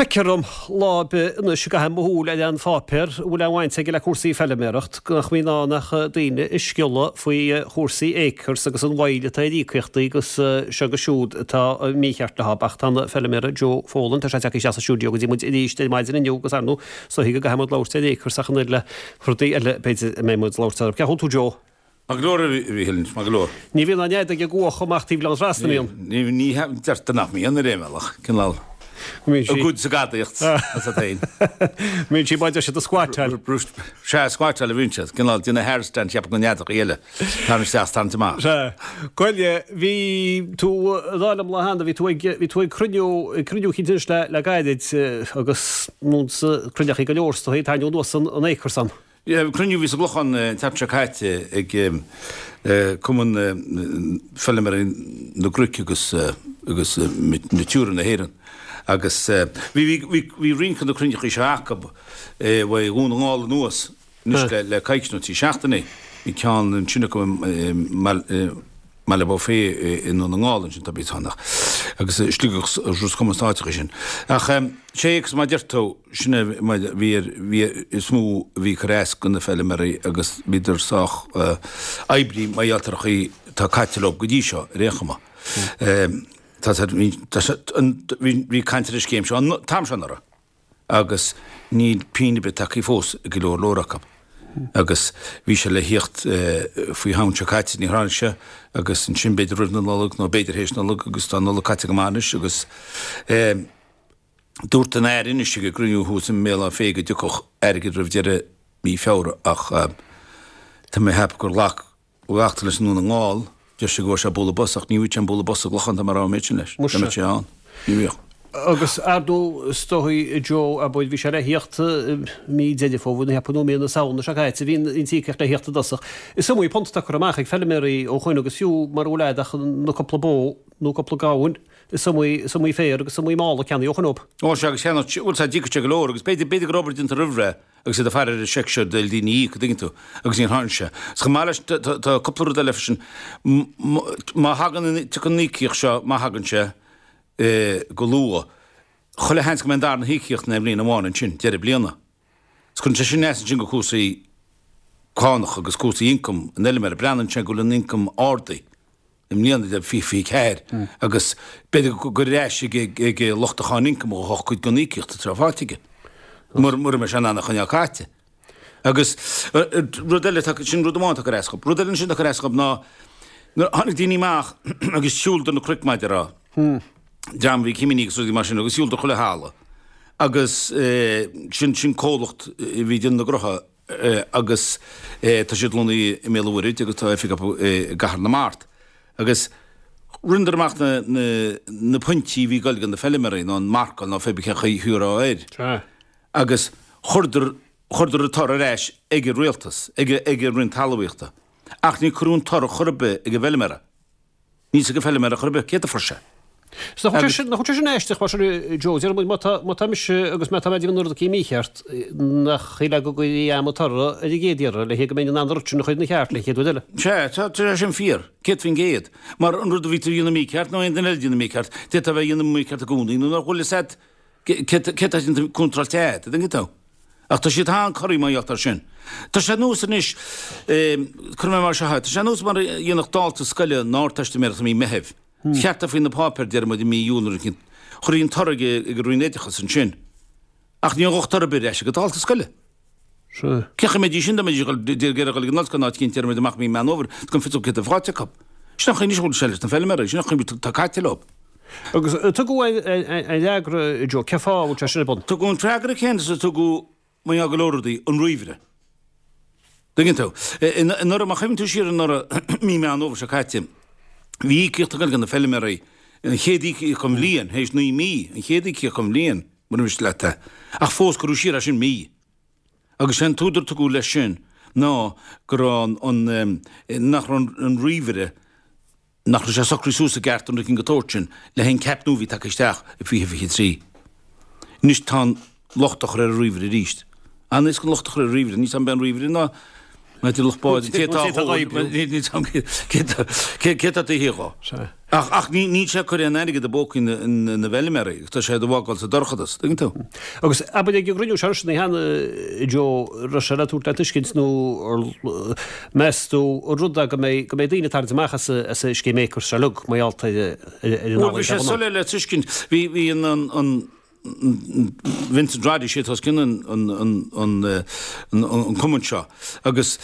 Feictear dom lá ar bith anois a gcaithim mo shúil ar aon pháipéar a bhfuil aon bhaint aige le cúrsaí feilméaracht nach mbíonn ann ach daoine ag sciolladh faoi chúrsaí Acres agus an mhoill atá ar íocaíochtaí agus seo agus siúd atá mícheart leo. Ach tá an feilméara Joe Folan, tá sé tagtha isteach sa stiúideo go dtí muid arís ar maidin inniu agus ar ndóigh is dóichí go gcaithfidh muid labhairt ar Acres ach an oiread le rudaí eile b'fhéidir a mbeidh muid ag labhairt orthu. Cén chaoi a bhfuil tú Joe? Maith go leor, a Mhíchíl, maith go leor. Ní bhíonn an fheadóg ag cuachadh amach taobh Ghleann Trasna, an mbíonn? Ní, deirtear nach mbíonn ar aon bhealach, cineál a gcuid sa gadaíocht as a féin. Mbíonn sí, maidir siad ag squatáil. Sea, squatáil a bhíonn siad, cineál déanamh handstand cheapfadh na neadachaí eile, tarraingt isteach is tarraingt amach. Sea. Goile, bhí tú, ag rá liom lá cheana, bhí tú ag, bhí tú ag cruinniú, ag cruinniú eicínt anois le, le gairid agus nó cruinneachaí go leor is dóichí, tarraingeadh anuas an, an Acres san. Cruinniú a bhí sa gClochán an tseachtain seo caite ag Cumann Feilméaraí na gCnoc agus agus Natura na hÉireann agus bhí bhí roinnt de na cruinneachaí seo acu ó Dhún na nGall anuas anois le coicís nó trí seachtainí. Bhí ceann ansin acu i mBaile Bó Féith i nDún na nGall ansin tá bíos ann agus Sligeach is Ros Comáin sna háiteacha sin. Ach sé agus mar a deir tú, Sin é mar a bhí ar, bhí, is mó a bhí ag cur as do na feilméaraí agus bhíodar sách oibrithe mar gheall ar an chaoi atá caite leo go dtí seo ar aon chuma. Tá sé, bhí, tá sé, an, bhí, bhí caint ar an scéim seo an t-am seo anuraidh agus níl pingin ar bith tagtha fós ag go leor leor acu. Agus bhí sé le thíocht faoi Shamhain seo caite, níor tháinig sé agus ansin b'fhéidir roimh na Nollag nó b'fhéidir théis Nollag agus tá an Nollaig caite go maith anois agus Dúirt an Aire anois ag an gcruinniú thuas i mBéal Átha Féith go dtiocfadh airgead roimh deireadh mí Feabhra ach tá mé ag ceapadh gur ghlac glactar leis i nDún na nGall. Deir sé go bhfuair sé bualadh bos ach ní bhfaighidh sé an bualadh bos sa gClochán dá mba rogha an méid sin leis. Dá mbeadh sé ann. Ní bhíodh. Agus ar ndóigh is dóigh Joe abair bhí sé le thíocht mí Deireadh Fómhair nó cheapfainn nó mí na Samhna seo caite bhí an t-íocaíocht le thíocht i dtosach. Is iomaí punt atá curtha amach ag feilméaraí ó shoin agus fiú mara bhfuil a'd ach na cúpla bó nó cúpla gamhain Is iomaí, is iomaí féar agus is iomaí mála ceannaíodh ó shoin dóibh. Ó sea, agus cheannaigh, bhuel sea, d'íocfadh sé go leor agus b'fhéidir, b'fhéidir go raibh obair déanta roimh ré agus iad ag faire ar an seic seo d'fhoill daoine a íoc, an dtuigeann tú, agus níor tháinig sé. Is chomh maith leis, tá, tá, tá cúpla rud eile freisin. Má thagann an, tiocfaidh an íocaíocht seo, má thagann sé, go luath, chuile sheans go mbeidh an darna híocaíocht in aon bhliain amháin ansin, deireadh bliana. Is cuireann sé sin as ansin go cúrsaí cánach agus cúrsaí ioncaim an fheilméara. Breathnaíonn sé go bhfuil an ioncam ardaithe i mbliana de 2024 agus b'fhéidir gur ar ais ag lucht an cháin ioncaim a ghabhfadh cuid den íocaíocht atá faighte aige, mura mbeidh sé in ann a choinneáil caite. Agus rud eile, sin rud amháin atá ag cur as dhób. Rud eile ansin atá ag cur as dhób ná nuair a tháinig daoine amach agus shiúladar na cnoic mar a déarfá, dream a bhí ag cimíní agus rudaí mar sin agus shiúladar chuile thalamh agus sin sin comhlacht a bhí ag déanamh na gcrotha agus tá siad lonnaithe i mBéal an Mhuirthead agus tá oifig acu i gCathair na Mart agus rinneadar amach na na na pointí a bhí ag goil do na feilméaraí nó an marcáil nó pé cén chaoi a rá air agus chuireadar chuireadar an toradh ar ais ag an rialtas ag ag an Roinn Talmhaíochta ach níor cuireadh an toradh chor ar bith ag an bhfeilméara. Níl a fhios ag an bhfeilméara chor ar bith céard a fuair sé. Is nach bhfuil sé sin, nach bhfuil sé sin aisteach mar sin, Joe, deir muid má tá, má tá mise agus má tá mé ag déanamh na rudaí mícheart, nach shílfeá go gcuirfí a'm an toradh ar an gcéad iarraidh le go mbeinn in ann an rud sin a chur ina cheart le chéad uair eile. Sea, tá, tá sé sin fíor, 100%. Mar an rud a bhí tú a dhéanamh mícheart nó aon duine eile a dhéanamh mícheart, d'fhéadfá a bheith a dhéanamh mícheart i gcónaí nó nach bhfuil fhios a'd céard atá déanta contráilte a'd, an dtuigeann tú? Ach tá siad an-corraithe mar gheall air sin. Tá sé ar nós anois, cuirfidh mé mar seo é, tá sé ar nós mar a dhéanfadh dalta scoile an Ardteistiméireacht i mí Meithimh. Cheart é faoi na páipéir, deir muid, i mí Iúil nó rud éicint. Chuirfí an toradh ag an Roinn Oideachais ansin. Ach ní ghabhfadh toradh ar bith ar ais ag an dalta scoile. Cén chaoi a mbeidís sin dá mbeidís ag iarraidh dul ag an ollscoil nó áit éicint, deir muid, amach i mí Meán Fhómhair, gan fios acu céard atá faighte acu. Sin an chaoi anois a bhfuil sé leis na feilméaraí, sin an chaoi atá caite leo. Agus tugadh an fhreagra, Joe, cén fáth a bhfuil sé sin ar bun? Tugadh an freagra céanna is a tugadh mar gheall go leor rudaí, an ríomhaire. Tuigeann tú? Anuraidh, má chuimhníonn tú siar anuraidh, mí Meán Fhómhair seo caite, bhí íocaíocht ag dul go na feilméaraí, an chéad íocaíocht den bhliain, théis 9 mí, an chéad íocaíocht den bhliain, mura miste leat é. Ach fós cuireadh siar é sin mí. Agus sé an t-údar a tugadh leis sin ná go raibh an, nach raibh an ríomhaire, nach raibh sé socraithe suas i gceart an rud éicint den tsórt sin le haghaidh an ceap nua a bhí tagtha isteach i 2023. Anois tá an locht á chur ar an ríomhaire arís. An-éasca an locht a chur ar an ríomhaire, níl 's a'm an b'é an ríomhaire ná. Maidir le lucht báid, an té atá á oibriú, cé atá taobh thiar dhó. Ach ach ní níl sé ag cur aon airgead i bpócaí na na bhfeilméaraí, tá sé á fhágáil sa dorchadas, tuigeann tú. Agus abair ag an gcruinniú seo ansin cheana, Joe, raibh sé le tabhairt le tuiscint nó meas tú an rud é go mbeidh go mbeidh daoine ag tarraingt amach as as an scéim Acres seo uilig mar gheall ar ar an Bhuel bhí sé soiléir le tuiscint, bhí bhí an an an Vincent Roddy, sé atá os cionn an cumann seo agus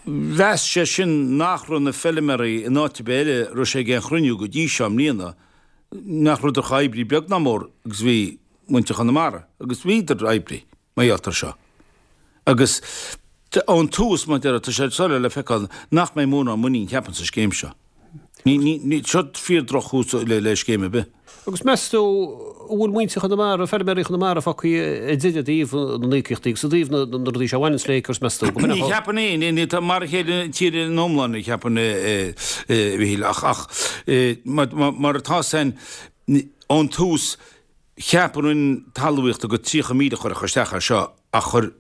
mheas sé sin nach raibh na feilméaraí in áit ar bith eile a raibh sé ag aon chruinniú go dtí seo i mbliana, nach rabhadar chomh oibrithe beag ná mór agus a bhí muintir Chonamara agus bhíodar oibrithe mar gheall air seo. Agus ón tús, mar a déarfá, tá sé soiléir le feiceáil nach mbeidh mórán muinín, cheapfainn, sa scéim seo. Ní, ní, ní, seo fíor droch-thús le, le scéim ar bith. Agus meas tú an bhfuil muintir Chonamara, feilméaraí Chonamara fágtha ar deireadh i dtaobh na n-íocaíochtaí agus i dtaobh na, na rudaí seo a bhaineanns le Acres, meas tú? Go Ní cheapfainn é, ní, ní, tá mar a chéile an tír ina iomláine, cheapfainn, a Mhichíl, ach, ach, mar, mar, mar atá san, ón tús, Cheap an Roinn Talmhaíochta gur 30,000 a chuirfeadh isteach air seo ach chuir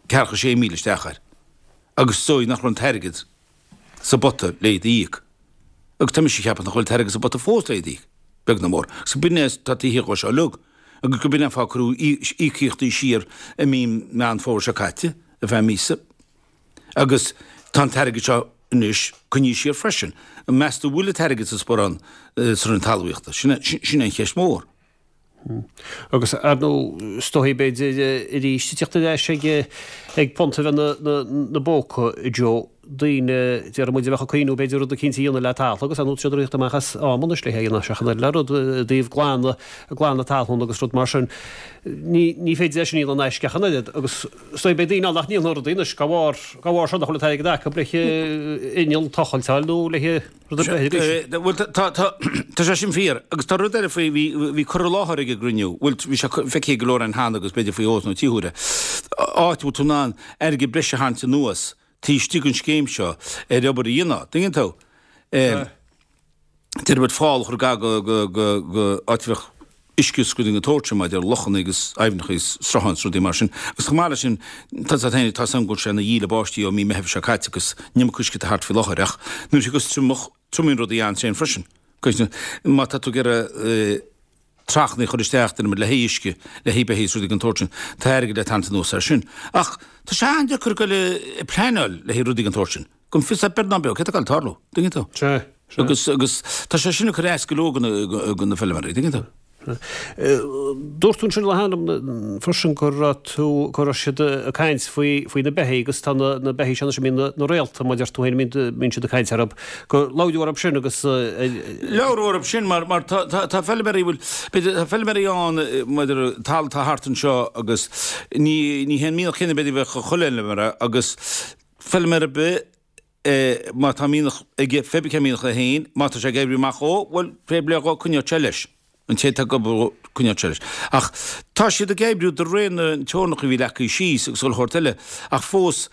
ceathracha 6,000 isteach air agus is dóigh nach raibh an t-airgead sa bpota le iad a íoc. Agus tá mise ag ceapadh nach bhfuil an t-airgead sa bpota fós le iad a íoc, beag ná mór. Agus b'in é atá taobh thiar dhó seo uilig. Agus go b'in é an fáth a cuireadh íocaíochtaí siar i mí Meán Fómhair seo caite, ar feadh míosa. Agus tá an t-airgead seo anois coinnithe siar freisin. Meas tú an bhfuil an t-airgead sa sparán sa Roinn Talmhaíochta? Sin é an cheist mhór. Agus ar ndóigh, is dóichí b'fhéidir arís ag teacht ar ais ag ag punt a bheith 'na bpóca, Joe, daoine, déarfaidh muid, a bheadh ag cuimhniú b'fhéidir rud eicínt a dhéanamh le talamh agus ar ndóigh tá siad ag rith amach as am anois le é a dhéanamh seachas an le rud i dtaobh glanadh, glanadh talún agus rud mar sin. Ní ní féidir é sin a dhéanamh in aisce ach an oiread agus is dóigh beidh daoine ann nach ndéanfaidh rudaí anois dá bharr dá bharr seo nach bhfuil an t-airgead acu le inneall tochailt a fháil nó le rud ar bith arís. Bhuel, tá, tá, tá sé sin fíor. Agus tá rud eile faoi, bhí, bhí cur i láthair ag an gcruinniú, bhuel, bhí sé feicthe ag go leor againn cheana agus b'fhéidir faoi dhó nó trí huaire, áit a bhfuil tú in ann airgead breise a tharraingt anuas taobh istigh den scéim seo ar obair a dhéanamh. Tuigeann tú? Deir muid fál a chur gar go, go, go, go áit a bheadh uisce is rudaí den tsórt sin maidir le lochanna agus aibhneacha is srutháin is rudaí mar sin. Agus chomh maith leis sin, tá a fhios agat féin, tá a fhios agam go bhfuil sé ina dhíle báistí ó mí Meithimh seo caite agus an iomarca uisce atá thart faoi láthair ach nuair a thiocfas triomach, triomaíonn rudaí an-tréan freisin. Má tá tú ag iarraidh trachanna a chur isteach, déarfaidh muid, le haghaidh uisce, le haghaidh beithígh is rudaí den tsórt sin, tá airgead le tarraingt anuas air sin. Ach tá sé an-deacair dul ag pleanáil le haghaidh rudaí den tsórt sin. Gan fios beag ná beo céard atá ag tarlú, tuigeann tú? Sea, sea. Agus, agus tá sé sin ag cur as go leor de na feilméaraí, tuigeann tú? Dúirt tú ansin le hainm freisin go raibh tú, go raibh siad ag caint faoi, faoi na beithígh agus tá na, na beithígh seo anois a mbíonn na, na réalta, mar a deir tú féin, a mbíonn, mbíonn siad ag caint orthu, gur labhradh orthu sin agus. Labhradh orthu sin mar, mar tá, tá, tá feilméaraí, bhuel, b'fhéidir, tá feilméaraí ann maidir le talamh atá thart anseo agus ní, ní hé an mianach céanna b'fhéidir a bheadh ag chuile fheilméara agus, Feilméara ar bith, má tá mianach aige, pé ar bith cén mianach é féin, má tá sé ag oibriú amach dhó, bhuel, fair play dhó, coinneoidh sé leis. An té atá ag obair dhó, coinneoidh sé leis. Ach tá siad ag oibriú de réir na teorainneacha a bhí leagtha síos agus chuile shórt eile, ach fós,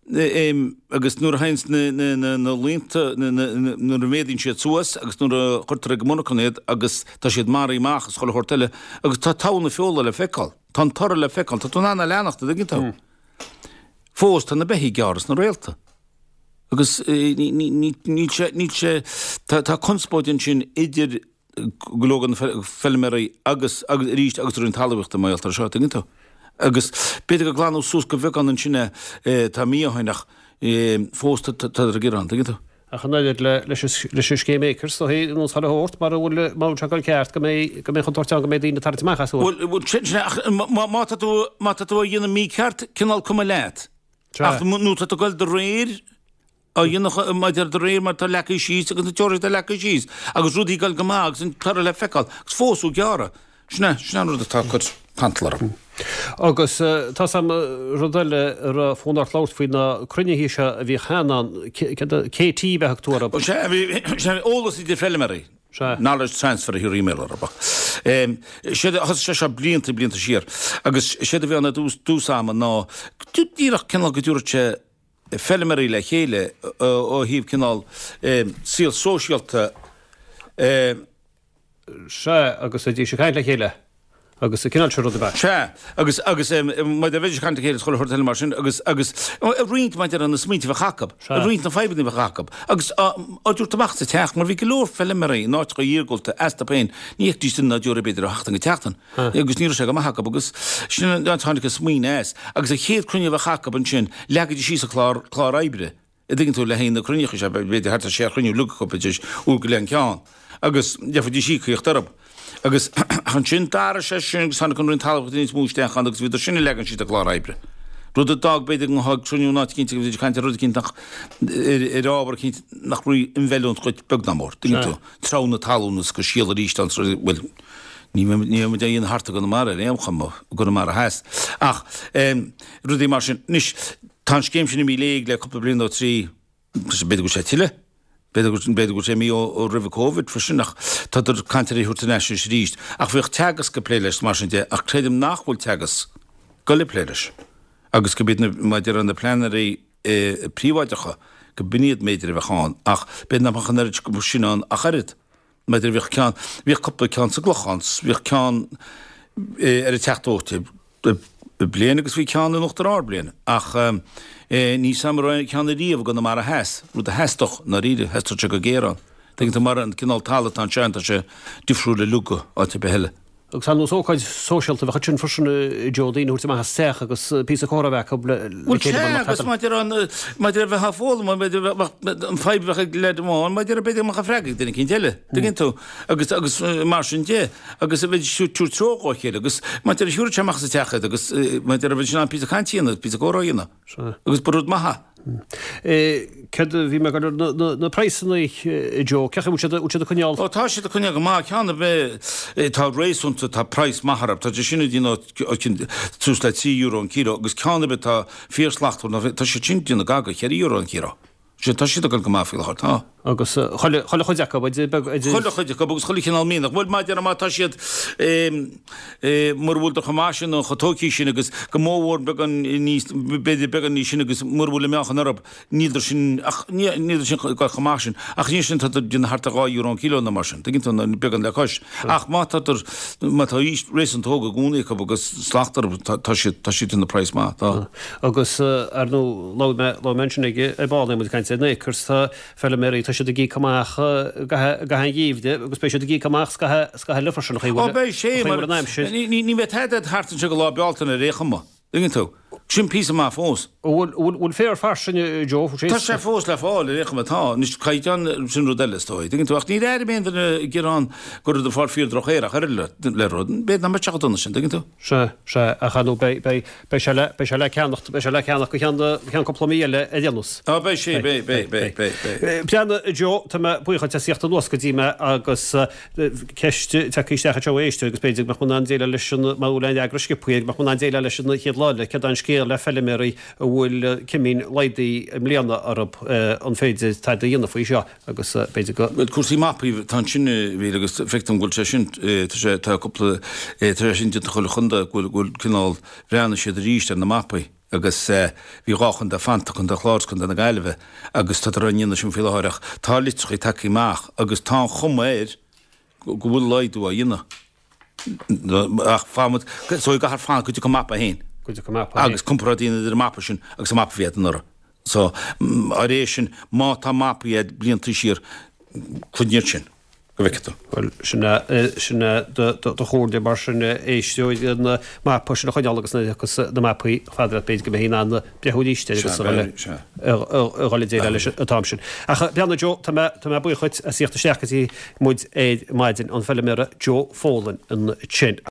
agus nuair a théanns na, na, na, na laonta, na, na, na, nuair a mhéadaíonn siad suas agus nuair a chuirtear ag an monarchan iad agus tá siad maraithe amach agus chuile shórt eile, agus tá togha na feola le feiceáil, tá an toradh le feiceáil, tá tú in ann a leanacht, an dtuigeann tú? Fós tá na beithígh ag gearradh sna réalta. Agus níl sé, níl sé, tá conspóid ansin idir go leor de na feilméaraí agus, agus arís, agus an Roinn Talmhaíochta mar gheall air seo, tuigeann tú. Agus b'fhéidir gur glanadh suas go bheagán ansin é tá mí ó shin ach fós tá ag gearán, tuigeann tú. Ach an oiread leis an scéim Acres, is dóichí, nó chuile shórt, mara bhfuil, mara bhfuil sé ag dul ceart, go mbeidh, go mbeidh contúirt ann go mbeidh daoine ag tarraingt amach as. Bhuel, bhuel, sin, sin é, ach má, má tá tú, má tá tú á dhéanamh mícheart, cineál cuma leat. Sea. Ach nó tá tú ag dul de réir, á dhéanamh, maidir de réir mar atá leagtha síos agus na teorainneacha atá leagtha síos, agus rudaí ag dul go maith agus an toradh le feiceáil, agus fós á gearradh. Sin é, sin é an rud atá ag cur cantal orm. Agus tá 's a'm rud eile a raibh fonn ort labhairt faoi na cruinnithe seo a bhíodh cheana ann, KT ab ea a thug tú orthu? Sea, bhí, sea, eolas idir feilméaraí. Sea. Knowledge transfer a thiúrfaí i mBéarla orthu. Séard a, thosaigh sé seo blianta, blianta siar. Agus séard a bhí ann i dtús, dtús ama ná díreach cineál go dtabharfadh sé feilméaraí le chéile ó thaobh cineál saol sóisialta. Sea, agus bheidís ag caint le chéile. Agus an cineál sin rud ab ea? Sea, agus, agus maidir le bheidís ag caint le chéile is chuile shórt eile mar sin agus, agus ag roinnt maidir le na smaointe a bheadh acu, ag roinnt na fadhbanna a bheadh acu agus á dtabhairt amach sa teach mar bhí go leor feilméaraí in áiteacha iargúlta astu féin, ní fheicfidís duine ná deoraí b'fhéidir ó sheachtain go tseachtain agus ní raibh sé go maith acu agus sin an áit a tháinig an smaoineamh as agus an chéad cruinniú a bheadh acu ansin leagaidís síos an clár, clár oibre. a dtuigeann tú, le haghaidh na cruinnithe seo, b'fhéidir thart ar sé chruinniú uilig acu, b'fhéidir uair go leith an ceann, agus gheobhaidís íocaíocht orthu. Agus ansin d'athraigh sé sin agus tháinig an Roinn Talmhaíochta níos mó isteach ann agus bhíodar sin ag leagan síos an clár oibre. Rud a d'fhág b'fhéidir go mbeifeá ag cruinniú in áit eicínt agus bheifí ag caint ar rud eicínt nach, ar ábhar eicínt nach raibh in bhfeiliúint dhuit beag ná mór, tuigeann tú, treabhadh na talún is go síol arís ann, bhuel, ní bheidh muid á dhéanamh thart i gConamara ar aon chuma, i gConamara Theas. Ach rudaí mar sin. Anois, Tá an scéim sin imithe i léig le cúpla bliain nó trí, b'fhéidir go bhfuil sé tuilleadh, b'fhéidir go b'fhéidir go bhfuil sé imithe ó roimh an Covid freisin ach tádar ag caint ar é a thabhairt ar ais anois arís. Ach bhíodh Teagasc ag plé leis mar sin de ach creidim nach bhfuil Teagasc ag goil ag plé leis agus go b'iad na, mar a déarfá, na pleanairí príobháideacha go b'in iad mb'fhéidir a bheadh ann ach b'fhéidir nach mbeadh an oiread sin ann ach oiread. Maidir bhíodh ceann, bhíodh cúpla ceann sa gClochán, bhíodh ceann ar an Teach Dóite bliain agus bhí ceann in Uachtar Ard bliain ach ní sam raibh ceann ariamh i gConamara Theas, rud a theastódh, i ndáiríre, theastódh sé go géar ann. Tuigeann tú mar an cineál talamh atá anseo tá sé difriúil uilig ó áit ar bith eile. Agus ar nós ócáid sóisialta bheadh ansin freisin a Joe, daoine a thabhairt amach as teach agus píosa comhrá a bheith acu le Bhuel chéile sea, mar nach agus tagann. maidir an, maidir le bheith á foghlaim, maidir le bheith, an fadhb a bheadh ag leaid amháin, maidir le b'fhéidir go mbeadh an freagra ag duine eicínt eile, tuigeann tú, agus, agus mar sin de, agus a bheith ag tabhairt treoir dhá chéile agus maidir le thiúrfadh sé amach as an teach iad agus maidir le bheith in ann píosa cainte a dhéanamh, píosa comhrá a dhéanamh. Sea. Agus ba rud maith é. Céard a bhí mé ag goil ar na praghsanna, a Joe, cén chaoi a bhfuil siad, bhfuil siad ag coinneáil? Ó tá siad ag coinneáil go maith, ceann ar bith atá réasúnta, tá praghas maith orthu, tá sé sin ag déanamh suas le €3 an kilo agus ceann ar bith atá fíorshlachtmhar, tá siad sin ag déanamh gar do €4 an kilo. Sea, tá siad ag dul go maith faoi láthair, tá. Agus chuile, chuile chuid acu, idir beag, idir. Chuile chuid acu agus chuile chineál mianach. Bhuel, mar a déarfá má tá siad, mura bhfuil chomh maith sin nó chomh tógtha sin agus go mórmhór beagán níos, b'fhéidir beagán níos sine agus mura bhfuil an meáchan orthu, níldar sin, ach níldar sin ag dul chomh maith sin. Ach níl sin, tádar ag déanamh thart ar €2 an kilo nó mar sin, tuigeann tú, nó beagán le cois. Ach má tádar, má tá aois réasúnta óg i gcónaí acu agus slacht orthu, tá siad, tá siad ag déanamh praghas maith, tá. Agus ar ndóigh, labhair mé, labhair mé ansin ag, ar ball, muid ag caint ar na acres, tá feilméaraí, tá siad ag íoc amach i gcaitheamh an gheimhridh agus beidh siad ag íoc amach scaitheamh eile freisin, an chaoi a Ó bhfuil, beidh sé, an chaoi a mar bhfuil an aimsir. ní, ní, ní bheidh tada thart anseo go lá Bealtaine ar aon chuma, tuigeann tú. Sin píosa maith fós. An bhfuil, bhfuil, bhfuil féar fairsing, a Joe, Tá sé fós le fáil ar aon chuma, tá. Anois caighdeán, sin rud eile is dóigh, tuigeann tú. Ach níor airigh mé aon duine ag gearán go rabhadar ag fáil fíor-droch-fhéar ach oiread le, le rud, b'fhéidir nach mbeadh sé chomh dona sin, tuigeann tú. Sea, sea, ach ar ndóigh beidh, beidh, Beidh sé le, beidh sé le ceannacht, beidh sé le ceannach go ceann, go ceann cúpla mí eile ar aon nós. Á, beidh sé, beidh, beidh, beidh, beidh, beidh. Breathnaigh, a Joe, tá mé buíoch duit as theacht anuas go dtí mé agus ceist tagtha isteach anseo ó éisteoir agus b'fhéidir go mbeadh mé in ann déileáil leis an, má bhfuil aon fhreagra sciobtha air, go mbeadh mé in ann déileáil leis an chéad lá eile, céard é an scéal le feilméaraí a bhfuil cimín laghdaithe i mbliana orthu, an féidir tada a dhéanamh faoi seo? agus b'fhéidir go. Bhuel, cúrsaí mapaí, tá ansin, a Mhíchíl, agus feictear dom go bhfuil sé sin, tá sé, tá cúpla, tá sé sin déanta chuile chontae, go bhfuil, go bhfuil cineál, bhreathnaigh siad arís ar na mapaí agus bhí dhá chontae fanta, Contae an Chláir agus Contae na Gaillimhe agus tádar á ndéanamh sin faoi láthair ach tá litreacha tagtha amach agus tá an chuma air go bhfuil laghdú á dhéanamh. Ach fanfaidh muid, so i gcaithfear fanacht go dtiocfaidh an mapa féin. Go dtiocfaidh an mapa féin. Agus comparáid a dhéanamh idir an mapa sin agus an mapa a bhí agat anuraidh. So, ar é sin, má tá mapaí agat blianta siar, cuimhnigh air sin, go bhfeicfidh tú. Bhuel, sin é, sin é do, do, do chomhairle mar sin, éisteoir, an mapa sin a choinneáil agus nuair a thiocfas na mapaí chomh fada leat b'fhéidir go mbeidh in ann breathnú arís air agus a dhul a dhul ag déileáil leis an t-am sin. Ach breathnaigh Joe, tá mé, tá mé buíoch dhuit as theacht isteach go dtí muid ar maidin, an feilméara Joe Folan ansin.